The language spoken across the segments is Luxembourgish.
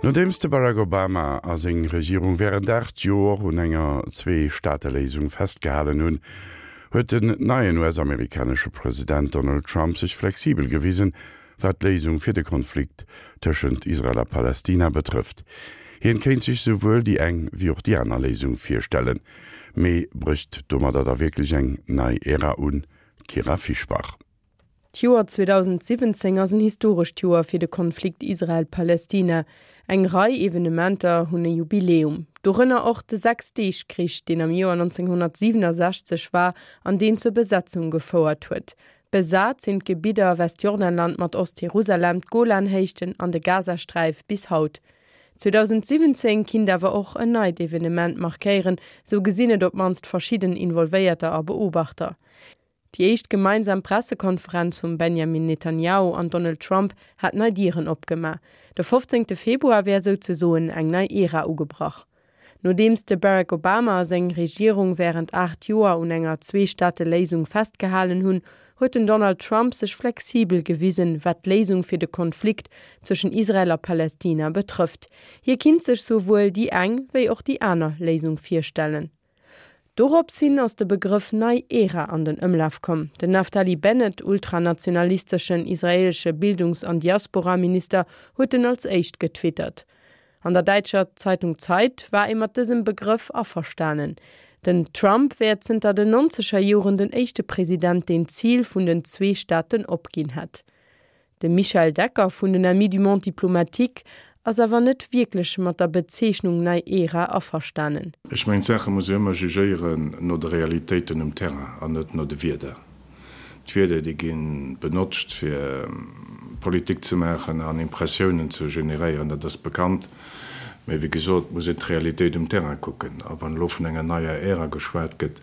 Nodeems de Barack Obama a seng Regierung wärend 8 Joer un enger Zwee-Staate-Léisung festgehalen hunn, huet den neien US-amerikanesche President Donald Trump sech flexibel gewisen, wat d'Léisung fir de Konflikt tëschent Israel a Palästina betrëfft. Hien kéint sech souwuel déi eng wéi och déi aner Léisung virstellen. Mee brécht domadder da wierklech eng nei Ära un? Kyra Fischbach. D'Joer 2017 ass en historescht Joer fir de Konflikt Israel-Palästina. Eng Rei Evenementer hunn e Jubiläum, dorënner och de Sechs-Deeg-Krich, deen am Joer 1967 war an deen zur Besetzung gefouert huet. Besat sinn d'Gebidder Westjordanland mat Ost-Jerusalem, d'Golanhéichten an de Gazasträif bis haut. 2017 kinnt awer och en neit Evenement markéieren, sou gesinn et op d'mannst verschidden Involvéierter a Beobachter. Déi éischt gemeinsam Pressekonferenz vum Benjamin Netanjahu an Donald Trump hat nei Dieren opgemaach. De 15 Februar wär souzesoen eng nei Ära ugebrach. Nodeems de Barack Obama a seng Regierung wärend 8 Joer un enger Zwee-Staate-Léisung festgehalen hunn, huet den Donald Trump sech flexibel gewisen, wat d'Léisung fir de Konflikt zwëschen Israel a Palästina betrëfft. Hie kinnt sech souwuel déi eng wéi och déi aner Léisung virstellen. Dorops hin ass de Begrëff nei Ära an den Ëmlaf komm. Den Naftali Bennett, ultranationalisteschen israeelesche Bildungs an Diasporaminister, huet en als éischt getwittert. An der däitscher Zeitung Zeit war ee mat dësem Begrëff averstanen. Den Trump wär zënter den nonzeger Joren den éischte President, deen d'Zil vun den zwee Staaten opginn hätt. De Michel Decker vun den Amis du Monde diplomatique ass awer net wierklech mat der Bezeechnung nei Ära averstanen. Ech mengen, d'Saache muss ee ëmmer jugéieren no de Realitéiten um Terrain an net no de Wierder. D'Wierder, déi gi benotzt, fir Politik ze maachen an Impressiounen ze generéieren, dat ass bekannt. Mä wéi gesot, et muss een d'Realitéit um Terrain kucken. A wann elo vun enger neier Ära geschwat gëtt,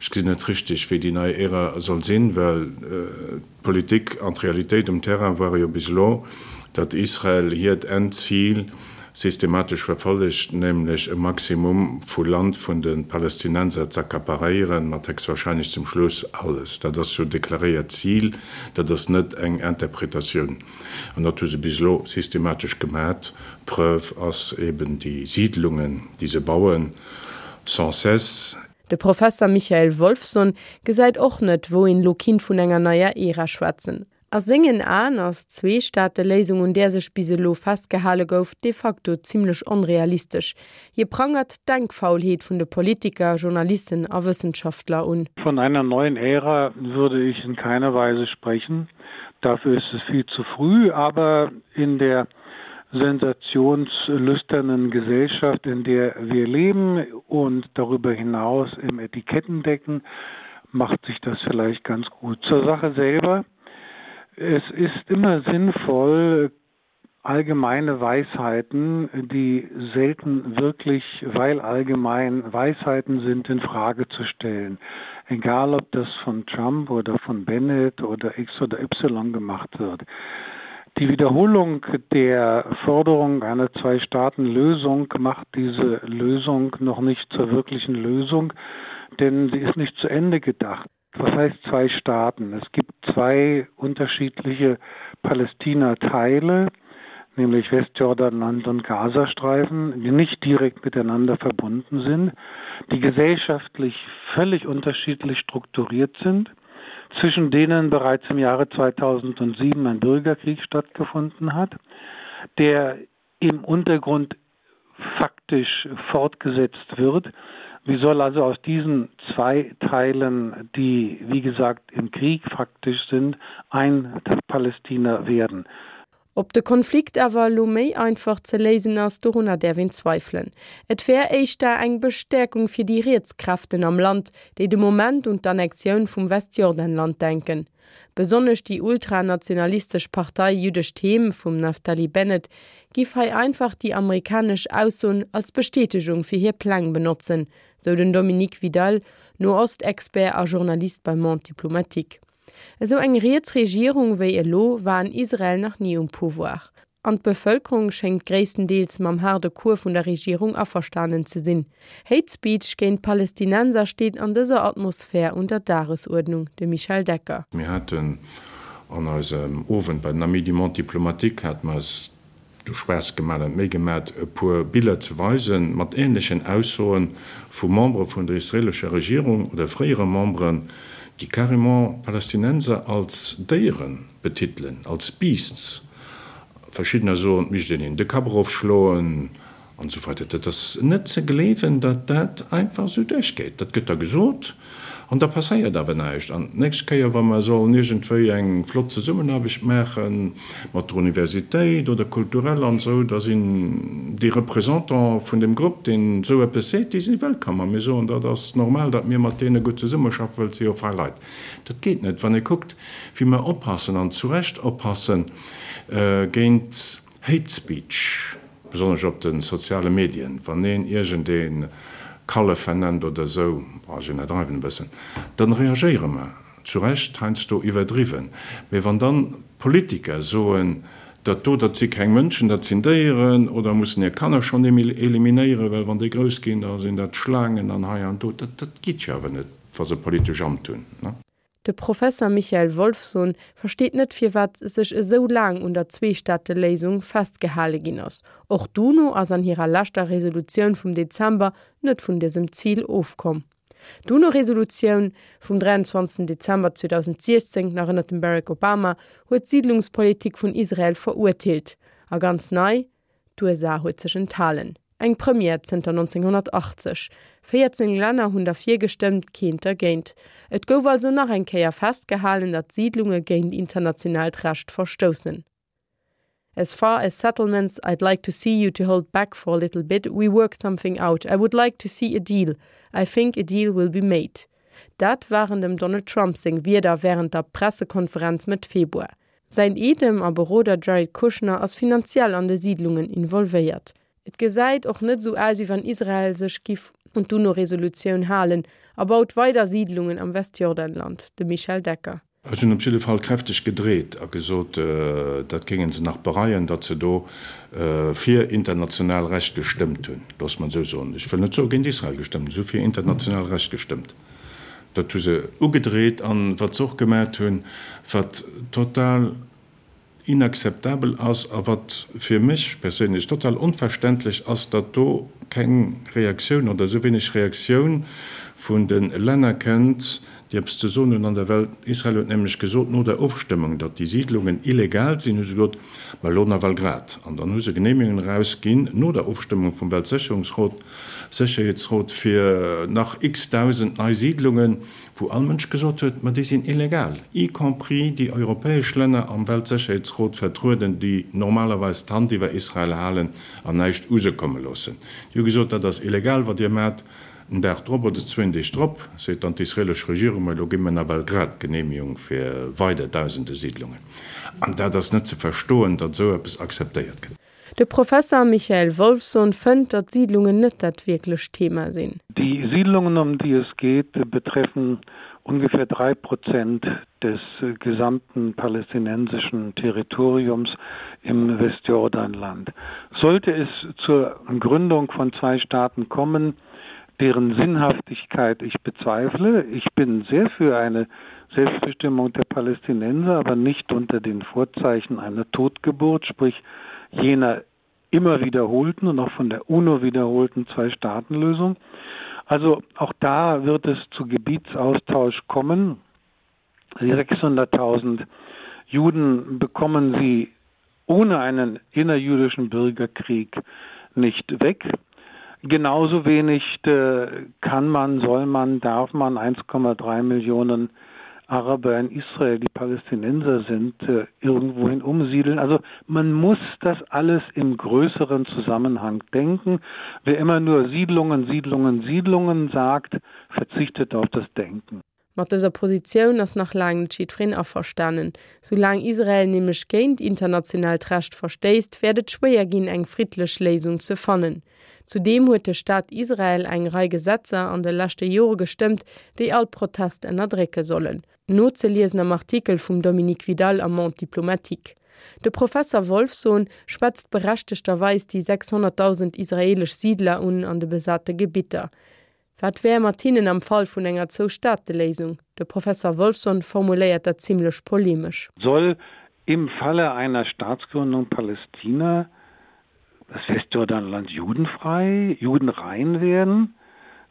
ech gesinn net richteg, wéi déi nei Ära soll sinn, well D'Politik an d'Realitéit um Terrain ware jo bis elo, datt Israel hiert Endzil systematesch verfollegt, nämlech e Maximum vu Land vun de Palästinenser z'accaparéieren, mat héchstwahrscheinlech zum Schluss alles. Dat ass jo deklaréiert Zil, dat ass net eng Interpretatioun. An dat hu se bis elo systematesch gemat. Preuve ass eben déi Siidlungen, déi se bauen, sans cesse. De Professer Michael Wolffsohn gesäit och net, wou een elo kinnt vun enger neier Ära schwätzen. A sengen Aen ass d'Zweestaateléisung, un där sech bis elo festgehale gouf, de facto zimmlech onrealistesch. Hie prangert d'Denkfaulheet vun de Politiker, Journalisten a Wëssenschaftler un. Von einer neuen Ära würde ich in keiner Weise sprechen. Dafür ist es viel zu früh, aber in der sensationslüsternen Gesellschaft, in der wir leben und darüber hinaus im Etikettendecken macht sich das vielleicht ganz gut. Zur Sache selber. Es ist immer sinnvoll, allgemeine Weisheiten, die selten wirklich, weil allgemein Weisheiten sind, in Frage zu stellen. Egal ob das von Trump oder von Bennett oder X oder Y gemacht wird. Die Wiederholung der Forderung einer Zwei-Staaten-Lösung macht diese Lösung noch nicht zur wirklichen Lösung, denn sie ist nicht zu Ende gedacht. Was heißt zwei Staaten? Es gibt zwei unterschiedliche Palästina-Teile, nämlich Westjordanland und Gazastreifen, die nicht direkt miteinander verbunden sind, die gesellschaftlich völlig unterschiedlich strukturiert sind, zwischen denen bereits im Jahre 2007 ein Bürgerkrieg stattgefunden hat, der im Untergrund faktisch fortgesetzt wird. Wie soll also aus diesen zwei Teilen, die wie gesagt im Krieg faktisch sind, ein Palästina werden? Ob de Konflikt awer elo méi einfach ze léisen ass, dorunner däerf een zweifelen. Et wär éischter eng Bestäerkung fir déi riets Kräften am Land, déi de Moment un d'Annexioun vum Westjordanland denken. Besonnesch déi ultranationalistesch Partei Jüddescht Heem vum Naftali Bennett giff hei einfach déi amerikanesch Aussoen als Bestätegung fir hir Pläng benotzen, sou den Dominique Vidal, Noost-Expert a Journalist beim Monde diplomatique. Esou eng riets Regierung wéi elo war an Israel nach ni um Pouvoir. An d'Bevëlkerung schéngt gréisstendeels mam haarde Cours vun der Regierung averstanen ze sinn. Hate Speech géint Palästinenser steet an dëser Atmosphär un der Dagesuerdnung, de Michel Decker. Mir haten an eisem Owend bei den Amis du Monde diplomatique hate mer eis. De Spaass gemaat an d'Méi gemaat e puer Biller ze weisen mat ähnlechen Aussoen vu Membere vun der israelescher Regierung oder fréiere Memberen, déi carrément Palästinenser als Déieren betitelen, als Beasts. Verschiddener soen, et misst een hinnen de Kapp erofschloen An esou weider. Dat ass net ze gleewen, datt dat einfach esou duerchgeet. Dat gëtt da gesot an da passéiert awer näischt. An d'nächst Kéier, wa mer sollen iergendwéi eng flott Zesummenaarbecht maache mat der Universitéit oder kulturell an esou, da sinn déi Représentants vun deem Grupp, deen esou eppes seet, déi si wëllkomm. A mir soen, dat ass normal, datt mir mat deene gutt zesummeschaffen, well et si jo fei Leit. Dat geet net. Wann ee kuckt, wéi mer oppassen, an zu Recht oppassen, géint Hate Speech, Besonnesch op de soziale Medien, wann een iergend ee Kallef vernennt oder esou, bon, ech iwwerdreiwen e bëssen, dann reagéiere mer, zu Recht heiansdo iwwerdriwwen. Mee wann dann Politiker soen, dat do, dat si keng Mënschen, dat sinn Déieren, oder mussen hir Kanner schonn eliminéieren, well wann déi grouss ginn, da sinn dat Schlaangen an hei an do, dat dat geet jo awer net, wa se politesch Amt hunn. De Professer Michael Wolffsohn versteet net firwat sech esou laang un der Zweestaateléisung festgehale ginn ass. Och d'UNO ass an hirer leschter Resolutioun vum Dezember net vun dësem Zil ofkomm. D'UNO-Resolutioun vum 23 Dezember 2016, nach ënnert dem Barack Obama, huet d'Siidlungspolitik vun Israel verurteelt. A ganz nei, D'USA huet sech enthalen. Eng Première zënter 1980. 14 Länner hunn derfir gestëmmt, keent dergéint. Et gouf also nach eng Kéier festgehalen, datt Siidlunge géint internationaalt Recht verstoussen. As far as settlements, I'd like to see you to hold back for a little bit, we work something out, I would like to see a deal, I think a deal will be made. Dat waren dem Donald Trump seng Wierder wärend der Pressekonferenz Mëtt Februar. Säin Eedem a Beroder Jared Kushner ass finanziell an de Siidlungen involvéiert. Et gesäit och net esou aus, wéi wann Israel sech giff un d'UNO-Resolutioun halen a baut weider Siidlungen am Westjordanland. De Michel Decker. Ech hunn op jidde Fall kräfteg gedreet a gesot, dat géinge se nach bereien, datt se do fir international Recht gestëmmt hunn. Loosse mer et esou soen. Ech wëll net soe géint Israel gestëmmt, ech hu fir international Recht gestëmmt. Dat hu se ugedreet. An wat se och gemat hunn, wat total inakzeptabel ass a wat fir mech perséinlech total onverständlech ass, datt do keng Reaktioun oder esou wéineg Reaktioun vun de Länner kënnt, déi eppes ze soen hunn an der Welt. Israel huet nämlech gesot no der Ofstëmmung, datt déi Siidlungen illegal sinn, hu se gesot, ma elo nawell grad. An dann hu se Genehmigungen erausginn no der Ofstëmmung vum Weltsécherungsrot, Sécherheetsrot fir nach x-Dausend nei Siidlungen, wou all Mënsch gesot huet, ma déi sinn illegal, y compris déi europäesch Länner am Weltsécherheetsrot vertrueden, déi normalerweis d'Hand iwwer Israel halen an näischt u se komme loossen. Déi hu gesot, dat ass illegal, wat Dir maacht. En Dag drop oder zwéin Deeg drop seet dann d'israelesch Regierung, ma elo gi mir nawell grad d'Genehmigung fir weider Dausende Siidlungen. An dat ass net ze verstoen, datt esou eppes akzeptéiert gëtt. De Professer Michael Wolffsohn fënnt, datt Siedlungen net dat wierklecht Thema sinn. Die Siedlungen, um die es geht, betreffen ungefähr 3 Prozent des gesamten palästinensischen Territoriums im Westjordanland. Sollte es zur Gründung von zwei Staaten kommen, deren Sinnhaftigkeit ich bezweifle, ich bin sehr für eine Selbstbestimmung der Palästinenser, aber nicht unter den Vorzeichen einer Totgeburt, sprich jener immer wiederholten und auch von der UNO wiederholten Zwei-Staaten-Lösung. Also auch da wird es zu Gebietsaustausch kommen. Die 600.000 Juden bekommen sie ohne einen innerjüdischen Bürgerkrieg nicht weg. Genauso wenig äh, kann man, soll man, darf man 1,3 Millionen Araber in Israel, die Palästinenser sind, äh, irgendwohin umsiedeln. Also man muss das alles im größeren Zusammenhang denken. Wer immer nur Siedlungen, Siedlungen, Siedlungen sagt, verzichtet auf das Denken. Mat dëser Positioun ass nach laang net jiddwereen averstanen. Soulaang Israel nämlech géint internationaalt Recht verstéisst, wäert et schwéier ginn, eng friddlech Léisung ze fannen. Zudeem huet de Staat Israel eng Rei Gesetzer an de leschte Jore gestëmmt, déi all Protest ënnerdrécke sollen. Nozeliesen am Artikel vum Dominique Vidal am Monde diplomatique. De Professer Wolffsohn schwätzt berechtegterweis déi 600.000 israeelesch Siidler un an de besate Gebitter. Wat wär mat hinnen am Fall vun enger Zwou-Staate-Léisung? De Professer Wolffsohn formuléiert dat zimlech polemesch. Soll im Falle einer Staatsgründung Palästina. das Westjordanland judenfrei, judenrein werden?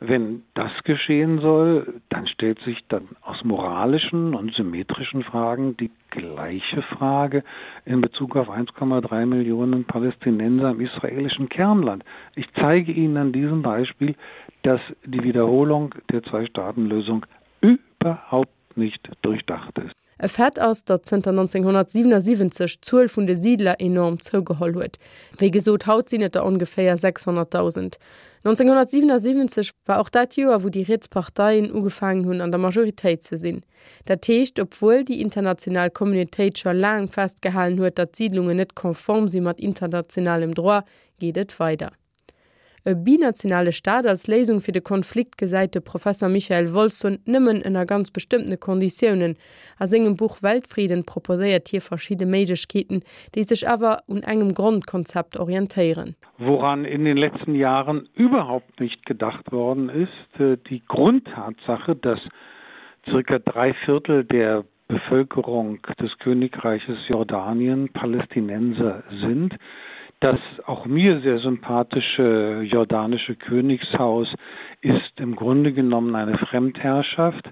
Wenn das geschehen soll, dann stellt sich dann aus moralischen und symmetrischen Fragen die gleiche Frage in Bezug auf 1,3 Millionen Palästinenser im israelischen Kernland. Ich zeige Ihnen an diesem Beispiel, dass die Wiederholung der Zwei-Staaten-Lösung überhaupt nicht durchdacht ist. E Fait ass, datt zënter 1977 d'Zuel vun de Siidler enorm zougeholl huet. Wéi gesot, haut sinn et der ongeféier 600.000. 1977 war och dat Joer, wou déi riets Parteien ugefaangen hunn, an der Majoritéit ze sinn. Dat heescht, obwuel déi international Communautéit scho laang festgehalen huet, datt d'Siidlungen net konform si mat internationalem Droit, geet et weider. E binationale Staat als Léisung fir de Konflikt gesäit de Professer Michael Wolffsohn nëmmen ënner ganz bestëmmtene Konditiounen. A sengem Buch Weltfrieden proposéiert hie verschidde Méiglechkeeten, déi sech awer un engem Grondkonzept orientéieren. Woran in den letzten Jahren überhaupt nicht gedacht worden ist, die Grundtatsache, dass circa drei Viertel der Bevölkerung des Königreiches Jordanien Palästinenser sind, das auch mir sehr sympathische jordanische Königshaus ist im Grunde genommen eine Fremdherrschaft.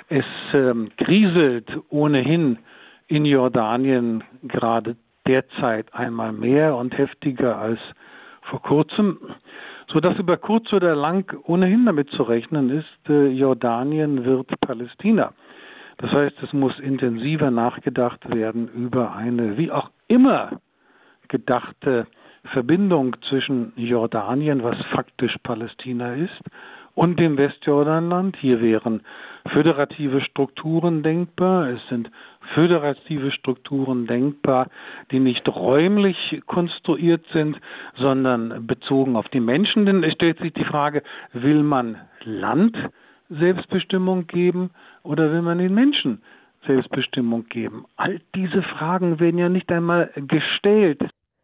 Es ähm, kriselt ohnehin in Jordanien gerade derzeit einmal mehr und heftiger als vor kurzem, so dass über kurz oder lang ohnehin damit zu rechnen ist, äh, Jordanien wird Palästina. Das heißt, es muss intensiver nachgedacht werden über eine wie auch immer gedachte Verbindung zwischen Jordanien, was faktisch Palästina ist, und dem Westjordanland. Hier wären föderative Strukturen denkbar. Es sind föderative Strukturen denkbar, die nicht räumlich konstruiert sind, sondern bezogen auf die Menschen. Denn es stellt sich die Frage, will man Land Selbstbestimmung geben oder will man den Menschen Selbstbestimmung geben? All diese Fragen werden ja nicht einmal gestellt.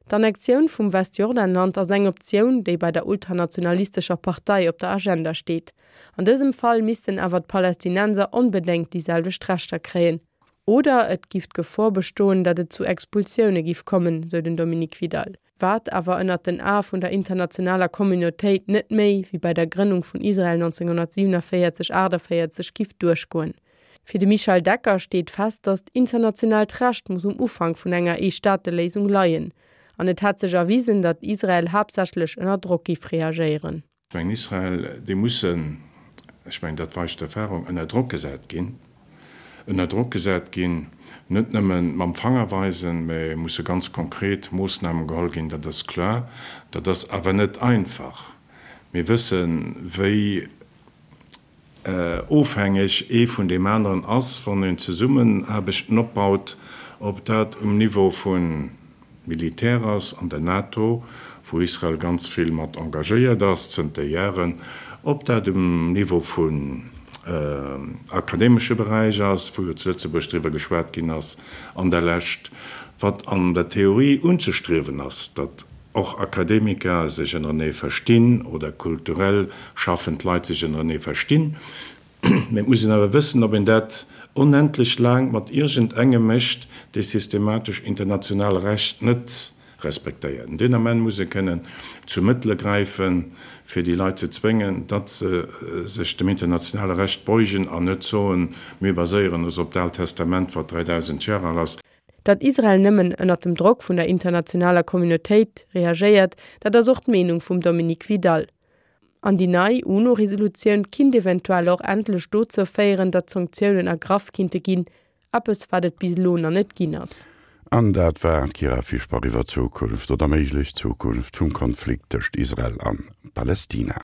D'Annexioun vum Westjordanland ass eng Optioun, déi bei der ultranationalistescher Partei op der Agenda steet. An dësem Fall missten awer d'Palästinenser onbedéngt déi selwecht Rechter kréien. Oder et giff d'Gefor bestoen, datt et zu Expulsioune giff kommen, sou den Dominique Vidal. Wat awer ënnert den Ae vun der internationaler Communautéit net méi wéi bei der Grënnung vun Israel 1947, 48 giff duerchgoen. Fir de Michel Decker steet fest, datt internationaalt Recht muss um Ufank vun enger Ee-Staate-Léisung leien. An et hätt sech erwisen, datt Israel haaptsächlech ënner Drock giff reagéieren. Ech mengen, Israel, déi mussen, ech mengen, dat weist d'Erfahrung, ënner Drock gesat ginn. Ënner Drock gesat ginn, net nëmme mam Fanger weisen, mä musse ganz konkret Moossnamen geholl ginn, dat ass kloer. Dat ass awer net einfach. Mir wëssen, wéi ofhängeg ee vun deem aneren ass, wann een Zesummenaarbechten opbaut, ob dat um Niveau vu Militär ass an der NATO, wou Israel ganz vill mat engagéiert ass zënter Jaren, ob dat um Niveau vun akademesche Beräich ass, wou jo zu Lëtzebuerg driwwer geschwat ginn ass an der Lescht, wat an der Theorie unzestriewen ass, datt och Akademiker sech ënnerenee verstinn oder kulturell schaffend Leit sech ënnerenee verstinn. Mee et muss een awer wëssen, ob een dat onendlech laang mat iergend engem mécht, dee systematesch international Recht net respektéiert. Deen Ament muss ee kënnen zu Mëttele gräifen, fir déi Leit ze zwéngen, datt se sech dem internationale Recht beugen an net soen, mir baséieren ons op d'Aalt Testament, wat 3.000 Jar al ass. Datt Israel nëmmen ënnert dem Drock vun der internationaler Communautéit reagéiert, dat ass och d'Meenung vum Dominique Vidal. An déi nei UNO-Resolutioun kinnt eventuell och endlech dozou féieren, datt Sanktiounen ergraff kinnte ginn, eppes wat et bis elo nach net ginn ass. An dat war d'Kyra Fischbach iwwer d'Zukunft oder méiglech Zukunft vum Konflikt tëscht Israel an Palästina.